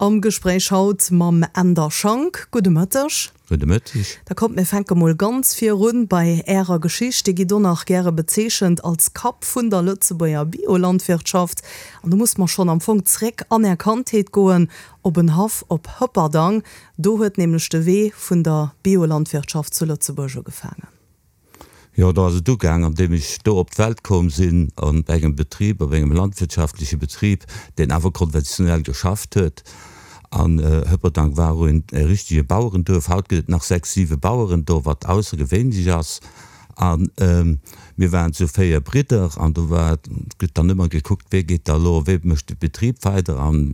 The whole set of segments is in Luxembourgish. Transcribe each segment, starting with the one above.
Am Gespréich haut mam Änder Schank. Gudde Mëtteg. Gudde Mëtteg. Da kommt mir fänke mol ganz virun bei Ärer Geschicht. Dir gitt och nach gäre bezeechent als Kapp vun der Lëtzebuerger Biolandwirtschaft. An do musse mer schonn am Fong zréck an Är Kandheet goen, op en Haff op Hëpperdang. Do huet nämlech de Wee vun der Biolandwirtschaft zu Lëtzebuerg ugefaangen. Jo, do ass et ugaang, an deem ech do op d'Welt komm sinn, an engem Betrib, op engem landwirtschaftleche Betrib, deen awer konventionell geschafft huet. An Hëpperdang war och een e richtege Bauerenduerf. Haut gëtt et nach sechs, siwe Baueren do, wat aussergewéinlech ass. A mir waren zu véier Bridder an do war, gëtt dann ëmmer gekuckt, wee geet da elo, wee mécht de Betrib weider an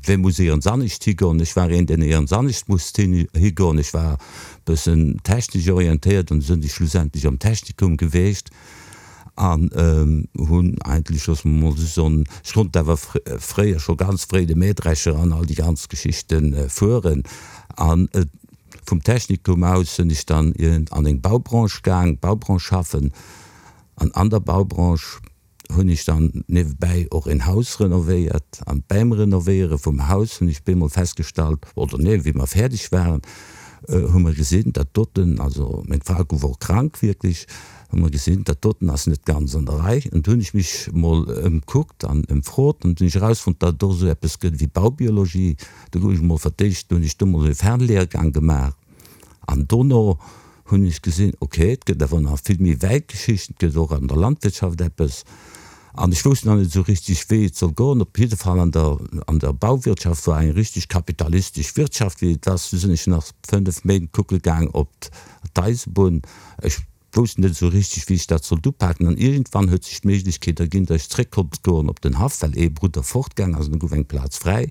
wee muss éierens anescht higoen. Ech war een, deen éierens anescht musst higoen. Ech war bëssen technesch orientéiert an sinn ech schlussendlech am Technikum geweecht an hunn eigentlech, loosse mer mol esou soen, ech konnt awer fréier scho ganz fréi de Mähdrescher an all déi ganz Geschichte fueren an vum Technikum aus sinn ech dann an eng Baubranche gaang, Baubranche schaffen an an der Baubranche hunn ech dann niewebäi och een Haus renovéiert an bäim Renovéiere vum Haus hunn ech bemol festgestallt, oder nee, wéi mer fäerdeg waren, hu mer gesinn, dat doten, also meng Fra gouf och krank wierklech, hu mer gesinn, dat doten ass net ganz an der Rei. An du hunn ech mech mol ëmkuckt an ëmfrot an hunn ech erausfonnt, datt et och esou eppes gëtt wéi Baubiologie. Do gouf ech mol fir d'éischt, hunn ech do mol e Fernlehrgang gemaach an dono hunn ech gesinn, ok, et gëtt awer nach vill méi wäit Geschichten, et gëtt och an der Landwirtschaft eppes. An ech wousst nach net esou richtig, wéi et soll goen. Op jidde Fall an der, an der Bauwirtschaft war eng richtig kapitalistesch Wirtschaft, wéi et ass. Du sinn ech nach 5 Méint kucke gaang op d'Eisebunn. Ech wousst net esou richtig, wéi ech dat sollt upaken. An iergendwann huet sech d'Méiglechkeet erginn, datt ech zréck konnt goen op den Haff, well ee Brudder fortgaang ass an da gouf eng Plaz fräi.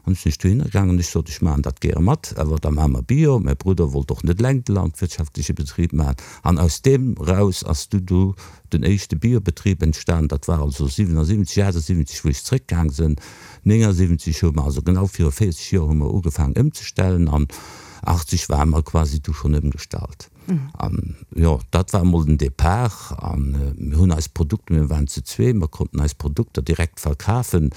An du sinn ech dohinner gaangen an ech sot, ech maachen dat gäre mat, awer da maache mer Bio. Mäi Brudder wollt och net eleng de landwirtschaftleche Betrib maachen. An aus deem raus ass du du den éischte Biobetrib entstan. Dat war also 77, 78, wou ech zréckgaang sinn. 79 hu mer, also genau viru 40 Joer hu mer ugefaangen ëmzestellen an 80 ware mer quasi du schonn ëmgestallt. An jo, dat war emol den Depart. A mir hunn eis Produkter, mir waren zu zwee, mer konnten eis Produkter direkt verkafen,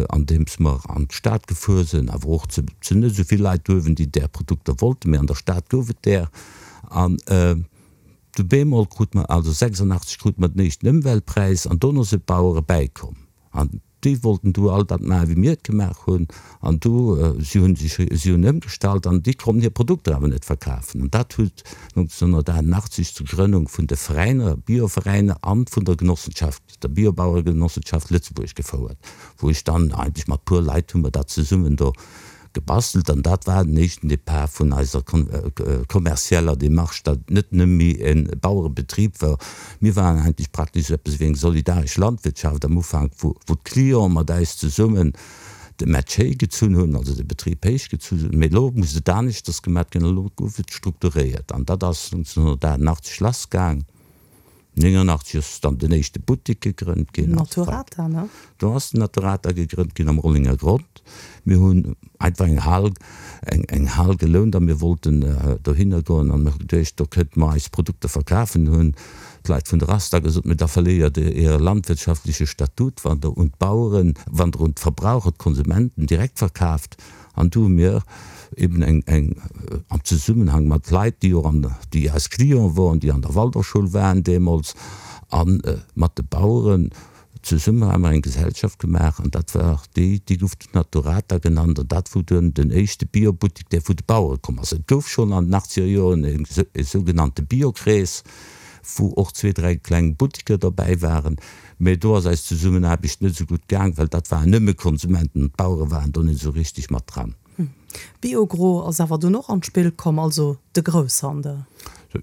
andeems mer an d'Stad gefuer sinn, awer och zu net esou vill Leit uewen, déi där Produkter wollten, mee an der Stad gouf et där. An du bemol krut mer, also 86 krut mer den éischten Ëmweltpräis an dono si d'Bauere bäikomm. An déi wollten du all dat maachen, wéi mir et gemaach hunn. An du, si hunn sech, si hunn ëmgestallt an déi konnten hir Produkter awer net verkafen. An dat huet 1988 zur Grënnung vun de Veräiner, Bioveräiner an vun der Genossenschaft, der Biobaueregenossenschaft Lëtzebuerg gefouert, wou ech dann eigentlech mat puer Leit hu mer dat zesummen do gebastelt an dat war den éischten Départ vun eiser kommerzieller Démarche, datt et net nëmme méi e Bauerebetrib war. Mir waren eigentlech praktesch esou eppes wéi eng solidaresch Landwirtschaft am Ufank, wou d'Clienten mat eis zesummen de Match héichgezunn hunn, also de Betrib héichgezunn hunn. Mee elo muss et aneschters gemat ginn, elo gouf et strukturéiert an dat ass 1988 lassgaang. 89 ass dann den éischte Buttek gegrënnt ginn. Naturata, ne? Do ass den Naturata gegrënnt ginn am Rollenger Grond. Mir hunn einfach eng Hal, eng, eng Hal gelount a mir wollten dohinner goen an mir hu geduecht, do kënnte mer eis Produkter verkafen. Hunn d'Leit vun der Asta gesot, Mee da verléiert Der Äre landwirtschaftleche Statut, wann Der un d'Baueren, wann Der un d'Verbraucher, d'Konsumenten direkt verkaaft. An do hu mir eben eng, eng, am Zesummenhang mat Leit, déi och an, déi eis Clienten woren, déi an der Waldorfschoul waren deemools, a mat de Baueren zesummen hu mer eng Gesellschaft gemaach an dat war déi, déi gouf dunn Naturata genannt an dat wor dunn den éischte Biobuttek, dee vu de Bauere komm ass. Et gouf schonn an den achtzeger Joren e sougenannte Biokrees, wou och zwee, dräi kleng Butteker dobäi waren. Mee do ass eis Zesummenaarbecht net esou gutt gaang, well dat waren nëmme Konsumenten an d'Bauere waren do net esou richteg mat dran. Biogro ass awer dunn och an d'Spill komm, also de Grousshandel.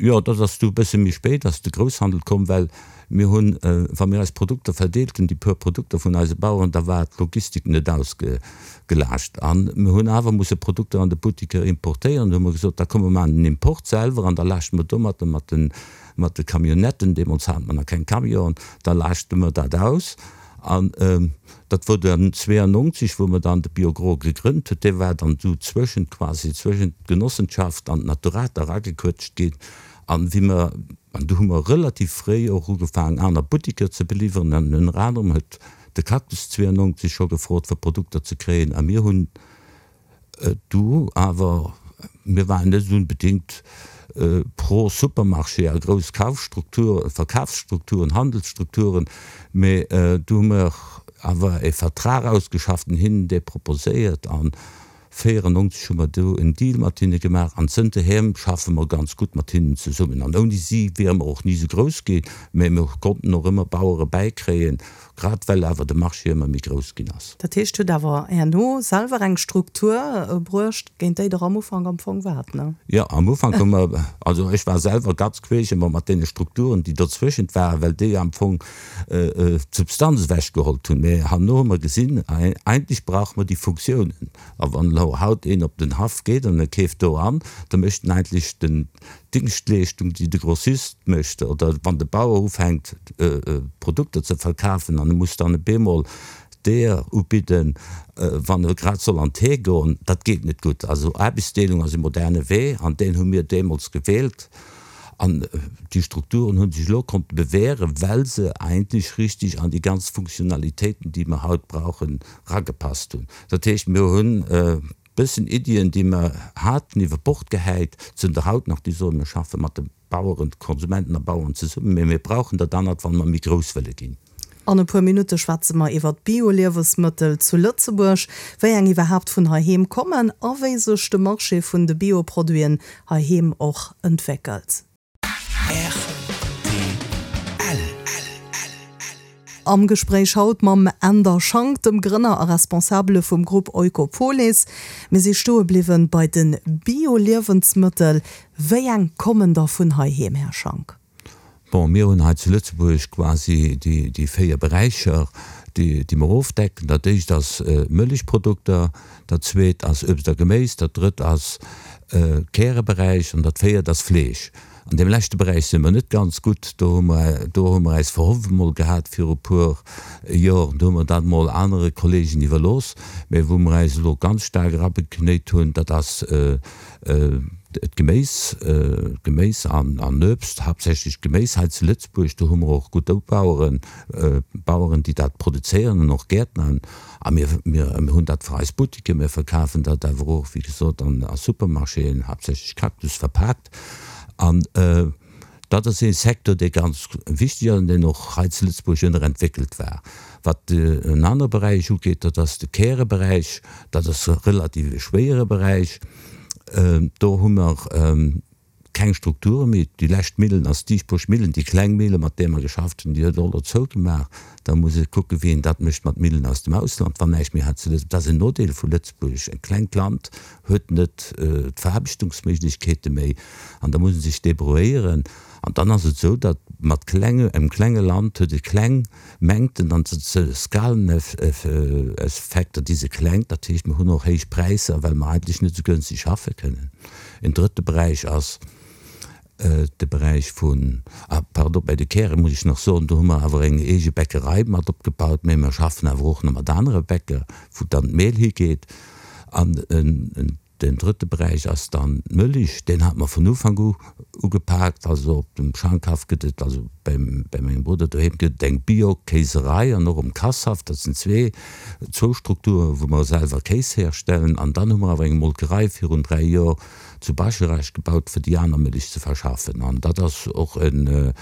Jo, dat ass du e bësse méi spéit ass de Grousshandel komm, well mir hunn, wa mir eis Produkter verdeelt hunn, déi puer Produkter vun eise Baueren, da war d'Logistik net ausgelaascht a mir hunn awer musse Produkter an de Buttiker importéieren. Du hu mer gesot, da komm mer maachen den Import selwer an da laaschte mer domatter mat den Mat de Camionnetten, deemools hate mer nach keng Camionen, da laaschte mer dat aus. An dat wor dann 92, wou mer dann de Biogro gegrënnt huet. Dee war dann do zwëschent, quasi zwëschent d'Genossenschaft an d'Naturata eragequëtscht ginn. An wéi mer, an do hu mer relativ fréi och ugefaangen, aner Buttiker ze beliwweren. An ënner anerem huet. de Cactus 92 scho gefrot fir Produkter ze kréien a mir hunn du awer, mir waren net unbedingt pro Supermarché a grouss Kaufstrukturen, Verkafsstrukturen, Handelsstrukturen, mee du hu mer awer e Vertrag ausgeschafft an hinnen dee proposéiert an 94 hu mer do en Deal mat hinne gemaach an zënterheem schaffe mer ganz gutt mat hinnen zesummen an ouni si wiere mer och ni esou grouss ginn, mä mir konnten och ëmmer Bauere bäikréien, grad well awer de Marché ëmmer méi grouss ginn ass. Dat heescht, hutt awer herno selwer eng Struktur bruecht, géint déi Der am Ufank am Fong waart, ne? Jo, am Ufank hu mer, also ech war selwer ganz queesch ëmmer mat deene Strukturen, déi dozwëschent waren, well déi am Fong d'Substanz ewechgehollt hunn. Mä herno hu mer gesinn, eigentlech brauche mer déi Funktiounen. A wann elo haut een op den Haff geet an e keeft do an, da mécht en eigentlech den d'Dingschtleeschtung, déi de Grossist mécht, oder wann de Bauer ufänkt Produkter ze verkafen an e muss dann e bemol d'Eeër ubidden, wann e grad soll an d'Hee goen, dat geet net gutt. Also Aarbechtsdeelung ass e moderne Wee an deen hu mir deemools gewielt. An déi Strukturen hu sech elo konnte bewähren, well se eigentlech richtig an déi ganz Funktionalitéiten, déi mer haut brauchen, eragepasst hunn. Dat heescht, mir hunn e bëssen Iddien, déi mer haten, iwwer Bord gehäit, zënter haut nach, déi soen, mir schaffe mat de Baueren, de Konsumenten a Bauern zesummen, mä mir brauchen dat anert, wa mer méi grouss wëlle ginn. An e puer Minutte schwätze mer iwwer d'Bio-Liewesmëttel zu Lëtzebuerg, wéi eng iwwerhaapt vun heiheem kommen a wéi sech de Marché vun de Bio-Produiten heiheem och entwéckelt. Rtl. Am Gespréich haut mam Änder Schank, dem Grënner a Responsabele vum Grupp Oikopolis. Mir si stoe bliwwen bei de Bio-Liewensmëttel. Wéi eng kommen da vun heiheem, Här Schank? Bon, mir hunn hei zu Lëtzebuerg quasi déi 4 Beräicher, déi mer ofdecken. Dat éischt ass Mëllechprodukter, dat zweet ass Uebst a Geméis, dat drëtt ass Käreberäich an dat véiert ass Fleesch. An deem leschte Beräich si mer net ganz gutt. Do hu mer, do hu mer eis verhofft emol gehat viru puer Joren, do hu mer dat emol anere Kollegen iwwerlooss. Mä wou mer eis elo ganz staark erabeknéit hunn, dat ass D'Geméis, Geméis an Uebst, haaptsächlech Geméis hei zu Lëtzebuerg, do hu mer och gutt Baueren, Baueren, déi dat produzéieren an och Gäertner. A mir, mir hunn dat fir eis Buttiken, mir verkafen dat awer och, wéi gesot, an a Supermarchéen, haaptsächlech Cactus verpaakt. An dat ass ee Secteur, dee ganz wichteg ass an deen och hei zu Lëtzebuerg ënnerentwéckelt war. Wat en anere Beräich ugeet, dat ass de Käreberäich. Dat ass e relativ e schwéiere Beräich. Do hu mer keng Strukture méi. Déi lescht Millen ass d'Diesburg Millen, déi kleng Mille mat där mer geschafft hunn, déi huet och elo zougemaach. Da muss ee kucken, wéi een dat mécht mat Millen aus dem Ausland, wann näischt méi hei zu Lëtzebuerg. Dat ass en Nodeel vu Lëtzebuerg. E klengt Land huet net d'Veraarbechtungsméiglechkeete méi an da muss e sech débrouilléieren. An dann ass et esou, datt mat klenge, engem klenge Land huet e kleng Mengten an Skalen-Effekter, déi se kleng, dat heescht mir hunn och héich Präisser, well mer eigentlech net esou gënschteg schaffe kënnen. En drëtte Beräich ass de Beräich vun, ah pardon, bei de Käre muss ech nach soen, do hu mer awer eng eege Bäckerei mat opgebaut, mä mer schaffen awer och nach mat anere Bäcker, wou dann d'Mehl higeet. An en Den drëtte Beräich ass dann d'Mëlich. Deen hat mer vun Ufank u ugepaakt. Also op dem Schankhaff gëtt et, also bei mengem Brudder doheem gëtt et eng Bio-Kéiserei an och um Kasshaff. Dat sinn zwee, zwou Strukturen, wou mer selwer Kéis herstellen. An dann hu mer awer eng Molkerei virun 3 Joer zu Bascharage gebaut, fir déi aner Mëlich ze verschaffen. An dat ass och en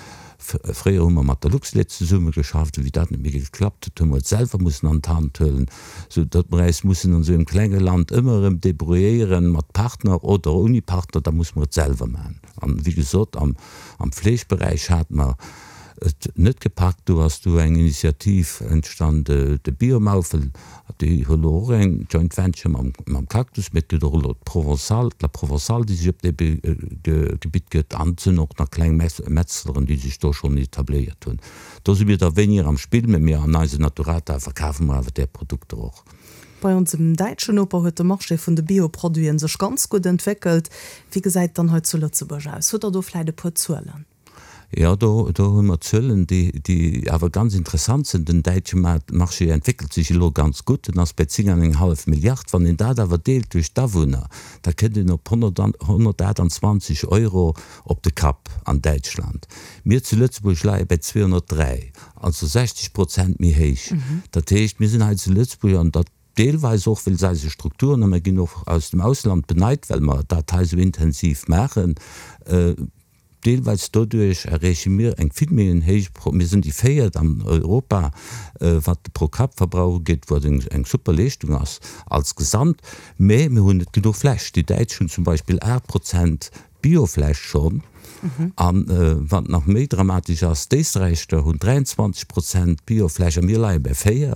Fréier hu mer mat der Luxlait zesummegeschafft, wéi dat net méi geklappt huet, hu mer et selwer mussen an d'Hand huelen, sou datt mer äis mussen an esou engem klenge Land ëmmer erëm débrouilléieren mat Partner oder ouni Partner, da musse mer et selwer maachen. An wéi gesot, am Fleeschberäich hate mer et net gepackt, do ass du eng Initiativ entstand, de Biomaufel, Déi hu elo och eng Joint Venture mam Cactus, mee et gëtt och elo d'Provençale, d'La Provençale, déi sech op dee Gebitt gëtt. An et sinn och nach kleng Metzleren, déi sech do schonn etabléiert hunn. Do si mir da wéiniger am Spill, mee mir an eise Naturata verkafe mer awer där Produkter och. Bei onsem däitschen Noper huet de Marché vun de Bioproduiten sech ganz gutt entwéckelt. Wéi gesäit et dann hei zu Lëtzebuerg aus? Hutt Der do vläit e puer Zuelen? Jo, do, do hu mer Zuelen, déi, déi awer ganz interessant sinn. Den däitsche Marché entwéckelt sech elo ganz gutt, en ass bei 10 an eng hallef Milliard. Wann een dat awer deelt duerch d'Awunner, da kënnt een op 128 Euro op de Kapp an Däitschland. Mir zu Lëtzebuerg leie bei 203, also 60 Prozent méi héich. Dat heescht, mir sinn hei zu Lëtzebuerg, an dat deelweis och wéinst eise Strukturen, a mir ginn och aus dem Ausland beneit, well mer dat hei esou intensiv maachen, Deelweis doduerch erreeche mir eng vill méi en héich, mir sinn déi véiert an Europa, wat de Pro-Kapp-Verbrauch ugeet, wat eng super Leeschtung ass als Gesamt, mä mir hunn net genuch Fläch. Déi Däitsch hunn zum Beispill 8 Prozent Biofläch schonn. A wat nach méi dramatesch ass, d'Éisträicher hunn 23 Prozent Biofläch a mir leie bei 4.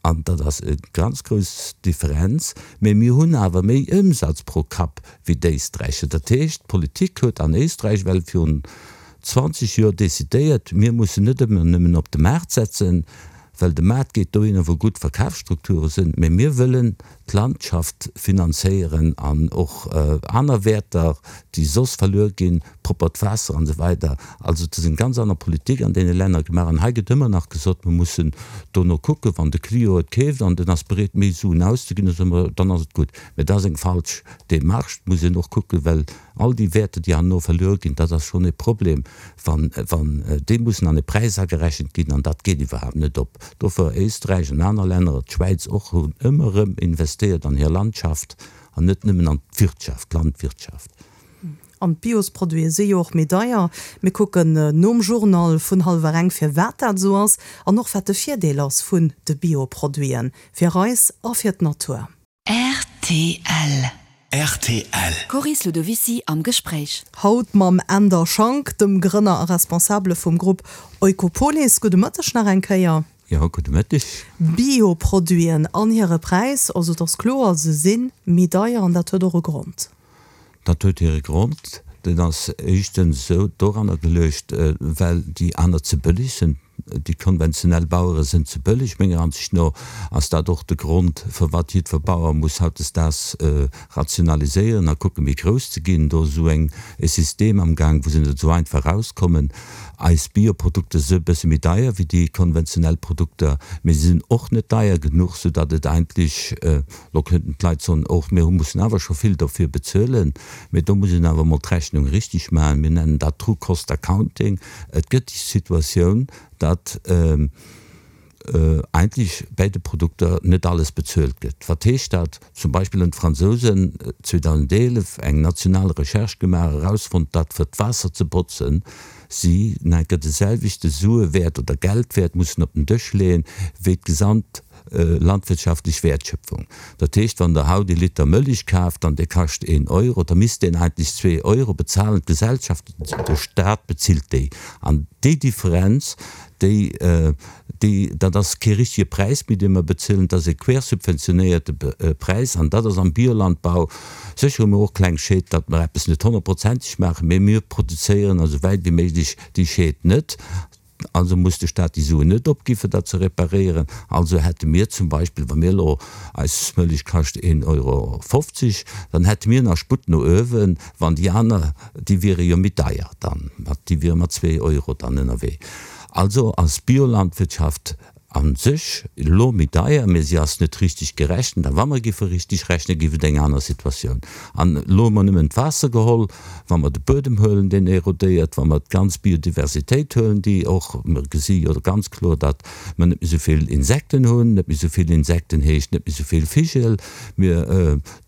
An dat ass e ganz grouss Differenz. Mä mir hunn awer méi Ëmsatz pro Kapp wéi d'Éisträicher. Dat heescht, d'Politik huet an Éisträich well virun 20 Joer decidéiert, mir mussen net ëmmer nëmmen op de Maart setzen, well de Maart geet dohinner, wou gutt Verkafsstrukture sinn, mä mir wëllen d'Landschaft finanzéieren an och aner Wäerter, déi soss verluer ginn, proppert Waasser an esou weider. Also et ass eng ganz aner Politik an deene Länner gemaach. An hei gëtt ëmmer nach gesot, mir mussen dono kucken, wann de Client et keeft an en ass bereet méi Suen auszeginn, da soe mer, dann ass et gutt. Mä dat ass eng falsch Démarche. Et muss een och kucken, well all déi Wäerter, déi herno verluer ginn, dat ass schonn e Problem, wann, wann déi mussen an e Präis agerechent ginn an dat geet iwwerhaapt net op. Dofir Éisträich an aner Länner, d'Schwäiz och, hunn ëmmer erëm investéiert an hir Landschaft an net nëmmen an d'Wirtschaft, d'Landwirtschaft. An d'Biosproduite si jo och méi deier. Mir kucken nom Journal vun hallwer eng firwat dat esou ass an och wat de Virdeel ass vun de Bioproduiten fir eis a fir d'Natur. Rtl. Rtl. Coris Ludovicy am Gespréich. Haut mam Änder Schank, dem Grënner a Responsabele vum Grupp Oikopolis. Gudde Mëtteg nach eng Kéier. Jo, gudde Mëtteg. Bioproduiten an hire Präis, also et ass kloer, se si méi deier an dat huet och e Grond. Dat huet hire Grond, deen ass éischtens esou doranner geluecht, well déi aner ze bëlleg sinn. Déi konventionell Bauere sinn ze bëlleg. Menger Ansicht no ass dat och de Grond, firwat jiddwer Bauer muss hautdesdaags rationaliséieren a kucken, méi grouss ze ginn. Do ass esou eng e System am Gaang, wou se net esou einfach erauskommen. Eis Bioprodukter si e bësse méi deier wéi déi konventionell Produkter, mee se sinn och net deier genuch, soudatt et eigentlech Lo könnten d'Leit soen, Och mir mussen awer scho vill dofir bezuelen. Mee do muss een awer emol d'Rechnung richtig maachen. Mir nennen dat True Cost Accounting. Et gëtt déi Situatioun, datt eigentlech bäi de Produkter net alles bezuelt gëtt. Wat heescht dat? Zum Beispill hunn d'Fransousen 2011 eng national Recherche gemaach, erausfonnt, datt fir d'Waasser ze botzen, si enker de selwechte Suewäert oder Geldwäert mussen op den Dësch leeën, wéi d'gesamt landwirtschaftlech Wäertschöpfung. Dat heescht, wann Der haut ee Liter Mëlich kaaft an dee kascht een Euro, da misst deen eigentlech zwee Euro bezahlen. D'Gesellschaft, de Stat bezilt déi. An déi Differenz, déi, déi, dat ass kee richtige Präis méi, dee mer bezilen, dat ass e quersubventionéierte Präis. An dat ass am Biolandbau, sécher hu mir och kleng Schéd, datt mer eppes net honnertprozenteg maachen, mä mir produzéieren esou wäit wéi méiglech déi Schéd net. Also muss de Staat déi Suen net opgi fir dat ze reparéieren. Also hätte mir zum Beispill, wa mir elo, eis Mëllech kascht een Euro 50, dann hätte mir nach Sputt no uewen, wann déi aner, déi wiere jo méi deier dann, déi wiere mat zwee Euro dann ënnerwee. Also ass Biolandwirtschaft A sech elo méi deier, mä si ass net richtig gerechent. A wa mer géife richtig rechnen, géif et eng aner Situatioun. An elo hu mer nëmmen d'Waasser geholl. Wa mer de Buedem huelen, deen erodéiert, wa mer d'ganz Biodiversitéit huelen, déi och, mer gesi jo ganz kloer, datt mer net méi esou vill Insekten hunn, net méi esou vill Insekten heescht net méi esou vill Vigel, mir,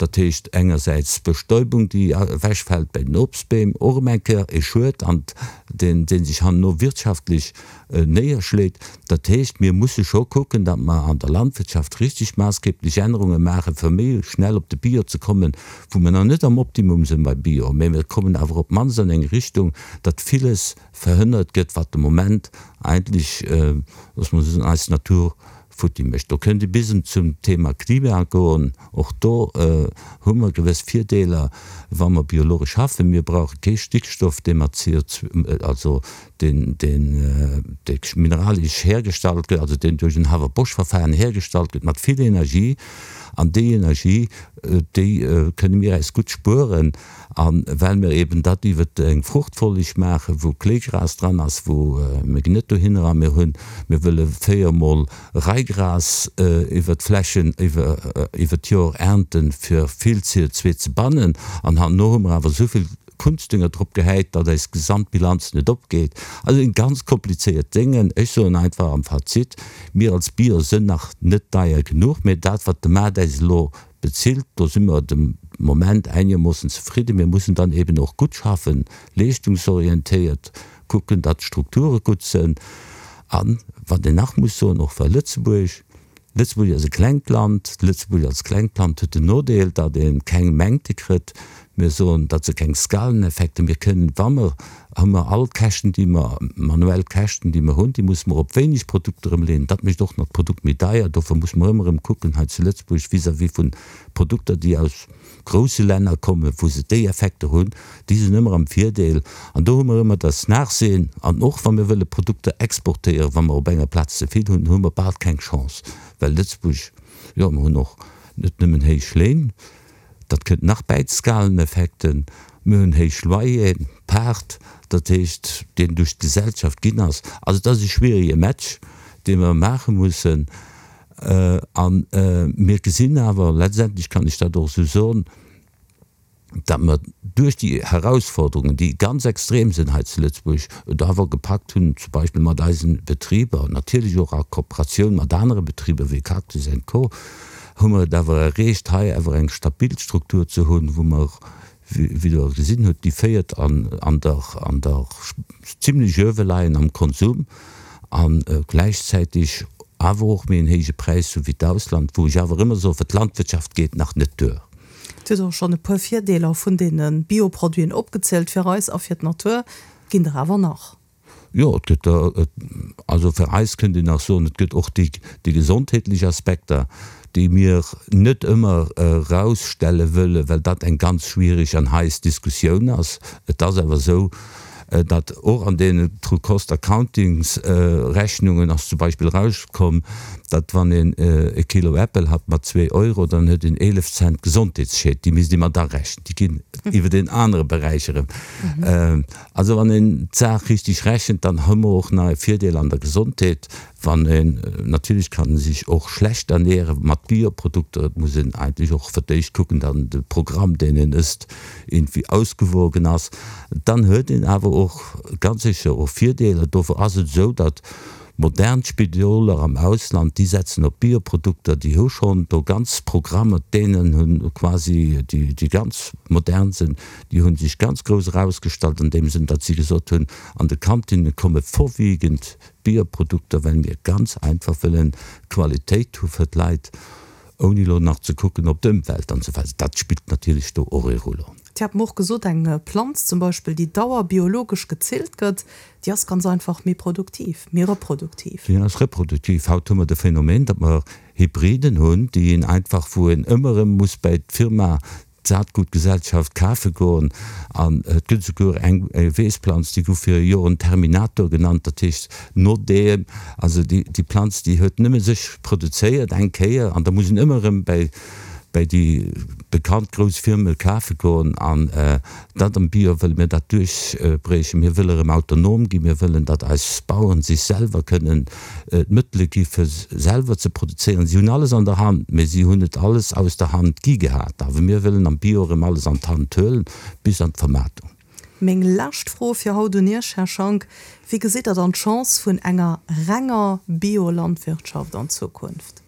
dat heescht engersäits d'Bestäubung, déi ewechfält bei den Obstbeem, och erëm eng Kéier e Schued, an deen, dee sech herno wirtschaftlech néierschléit. Dat heescht, mir musse scho kucken, datt mer an der Landwirtschaft richtig maassgeblech Ännerunge maachen, fir méi schnell op de Bio ze kommen, wou mer nach net am Optimum sinn bei Bio, mä mir kommen awer op d'mannst an eng Richtung, datt villes verhënnert gëtt, wat de Moment eigentlech, loosse mer soen, eis Natur futti mécht. Do kënnt ee bis zum Thema Klima goen. Och do hu mer gewëss Virdeeler, wa mer biologesch schaffen. Mir brauche kee Stickstoff, dee mat CO2, also. deen, deen, dee mineralesch hergestallt gëtt, also deen duerch en Haber-Bosch-Verfahren hergestallt gëtt mat vill Energie. An déi Energie, déi kënne mir äis gutt spueren. A well mir eben dat iwwer eng Fruchtfolleg maachen, wou Kléigras dran ass, wou mir ginn net dohinner a mir hunn, mir wëlle véiermol Raigras iwwer d'Flächen iwwer d'Joer ernten, fir vill CO2 ze bannen. An herno hu mer awer esou vill Kunstdünger drop gehäit, datt eis Gesamtbilanz net opgeet. Also sinn ganz komplizéiert Déngen. Ech soen einfach am Fazit, mir als Bio sënn nach net deier genuch, mä dat wat de Maart äis elo Bezilt, do si mer de Moment einermoossen zefridden. Mir mussen dann eben och gutt schaffen, leeschtungsorientéiert kucken, datt d'Strukture gutt sënn. An, wat een nach muss soen, och well Lëtzebuerg, Lëtzebuerg ass e klengt Land, Lëtzebuerg als klengt Land huet den Nodeel, datt ee keng Mängte kritt. Mir soen, datt se keng Skaleneffekte, mir kënnen, wa mer hu mer all d'Käschten, déi mer, manuell Käschten, déi mer hunn, déi musse mer op wéineg Produkter ëmleeën. Dat mécht och nach d'Produkt méi deier. Dofir muss mer ëmmer erëm kucken hei zu Lëtzebuerg vis-à-vis vun Produkter, déi aus grousse Länner kommen, wou se déi Effekter hunn, déi sinn ëmmer am Virdeel. An do hu mer ëmmer das Nachsehen. An och wa mir wëlle Produkter exportéieren, wa mer op enger Plaz ze vill hunn, hu mer bal keng Chance, well Lëtzebuerg, jo, mer hunn och net nëmmen héich Léin, Dat kënnt nach bäi d'Skaleneffekten. Mir hunn héich Loyeren, Paart, dat heescht, deen duerch d'Gesellschaft ginn ass. Also et ass e schwierige Match, dee mer maache mussen. A mir gesinn awer, letztendlech kann ech dat och esou soen, datt mer duerch déi Herausforderungen, déi ganz extrem sinn hei zu Lëtzebuerg, et awer gepackt hunn, zum Beispill mat eisen Betriber, natierlech och a Kooperatioun mat anere Betriber wéi Cactus and Co. Hu mer et awer erreecht, hei awer eng stabil Struktur ze hunn, wou mer, wéi Der gesinn hutt, déi féiert an an der an der zimlech uewe leien am Konsum a gläichzäitig awer och méi en héije Präis hu wéi d'Ausland, wou ech awer ëmmer soen, fir d'Landwirtschaft geet nach net duer. Dir hutt och schonn e puer Virdeeler vun deene Bioproduiten opgezielt fir eis a fir d'Natur. Ginn der awer nach. Jo, et gëtt der, also fir eis kënnt een nach soen, et gëtt och déi, déi gesondheetlech Aspekter, déi mir net ëmmer erausstelle wëllen, well dat eng ganz schwierig an heiss Diskussioun ass. Et ass awer esou, datt och an deenen True Cost Accountings Rechnungen ass zum Beispill erauskomm, datt wann een e Kilo Äppel hat mat zwee Euro, dann huet een 11 Cent Gesondheetsschied, déi misst ee mat arechnen, déi ginn iwwer een anere Beräich erëm. Also wann een d'Saach richteg rechent, dann hu mer och nach e Virdeel an der Gesondheet. Wann een, natierlech kann e sech och schlecht ernähre mat Bioprodukter, et muss een eigentlech och fir d'éischt kucken, datt de Programm deen een ësst iergendwéi ausgewogen ass, dann huet een awer och ganz sécher och Virdeeler. Dofir ass et esou, datt Modern Spidoler am Ausland, déi setzen op Bioprodukter, déi hu schonn do ganz Programmer, d'Dänen hu quasi déi ganz modern sinn, déi hu sech ganz grouss erausgestallt an deem Sënn, datt si gesot hunn, an de Kantinne komme vorwiegend Bioprodukter, well mir ganz einfach wëllen Qualitéit hu fir d'Leit. Ouni elo nach ze kucken op d'Ëmwelt an esou weider. Dat spillt natierlech do och ee Rôle. Dir hat mer och gesot, eng Planz zum Beispill, déi dauerbiologesch gezillt gëtt, déi ass ganz einfach méi produktiv, méi reproduktiv. Déi ass reproduktiv. Haut hu mer de Phänomen, datt mer Hybriden hunn, déi een einfach, wou een ëmmer erëm muss bäi d'Firma d'Saatgutgesellschaft kafe goen. An et gëtt esouguer eng Weessplanz, déi gouf viru Joren Terminator genannt, dat heescht no deem, also déi déi Planz, déi huet nëmme sech produzéiert eng Kéier an da muss een ëmmer erëm bäi bäi déi bekannt grouss Firme kafe goen. An dat am Bio wëlle mir dat duerchbriechen. Mir wëlle erëm autonom ginn, mir wëllen, datt eis Baueren sech selwer kënnen d'Mëttele gi fir selwer ze produzéieren. Si hunn alles an der Hand, mee si hunn et alles aus der Hand gi gehat. Awer mir wëllen am Bio erëm alles an d'Hand huelen, bis an d'Vermaartung. Meng lescht Fro fir haut un Iech, Här Schank, Wéi gesitt Der dann d'Chance vun enger renger Biolandwirtschaft an Zukunft?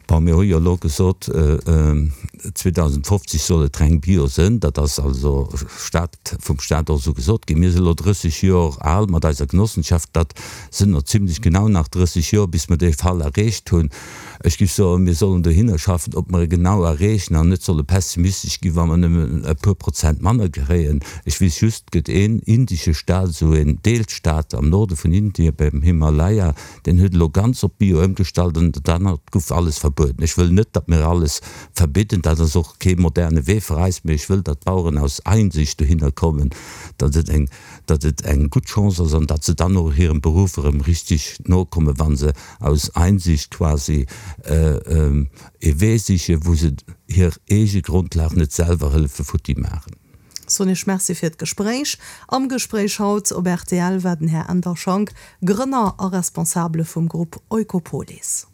Bon, mir hu jo elo gesot, 2050 soll et reng bio sënn. Dat ass also Stat, vum Stat och esou gesot ginn. Mir sinn elo 30 Jor al mat eiser Genossenschaft. Dat sënn no zimlech genau nach 30 Jor, bis mer dee Fall erreecht hunn. Ech géif soen, mir sollen dohinner schaffen, ob mer e genau erreechen an net solle pessimistesch ginn, wa mer nëmmen e puer Prozent manner kréien. Ech weess just, et gëtt een indesche Stat, esou een Deelstaat am Norde vun Indien, beim Himalaya, Deen huet elo ganz op Bio ëmgestallt an dat anert guff alles verbueden. verbueden. Ech wëll net, datt mir alles verbidden, dat ass och kee moderne Wee fir eis, mee ech wëll, datt d'Baueren aus Einsicht dohinner kommen, datt et eng, datt et eng gutt Chance ass an datt se dann och hirem Beruff erëm richtig nokommen, wa se aus Einsicht quasi ee Wee sichen, wou se hir eege Grondlag net selwer hëllefe futti maachen. Soen Iech Merci fir d'Gespréich. Am Gespréich haut op rtl war den Här Änder Schank, Grënner a Responsabele vum Grupp Oikopolis.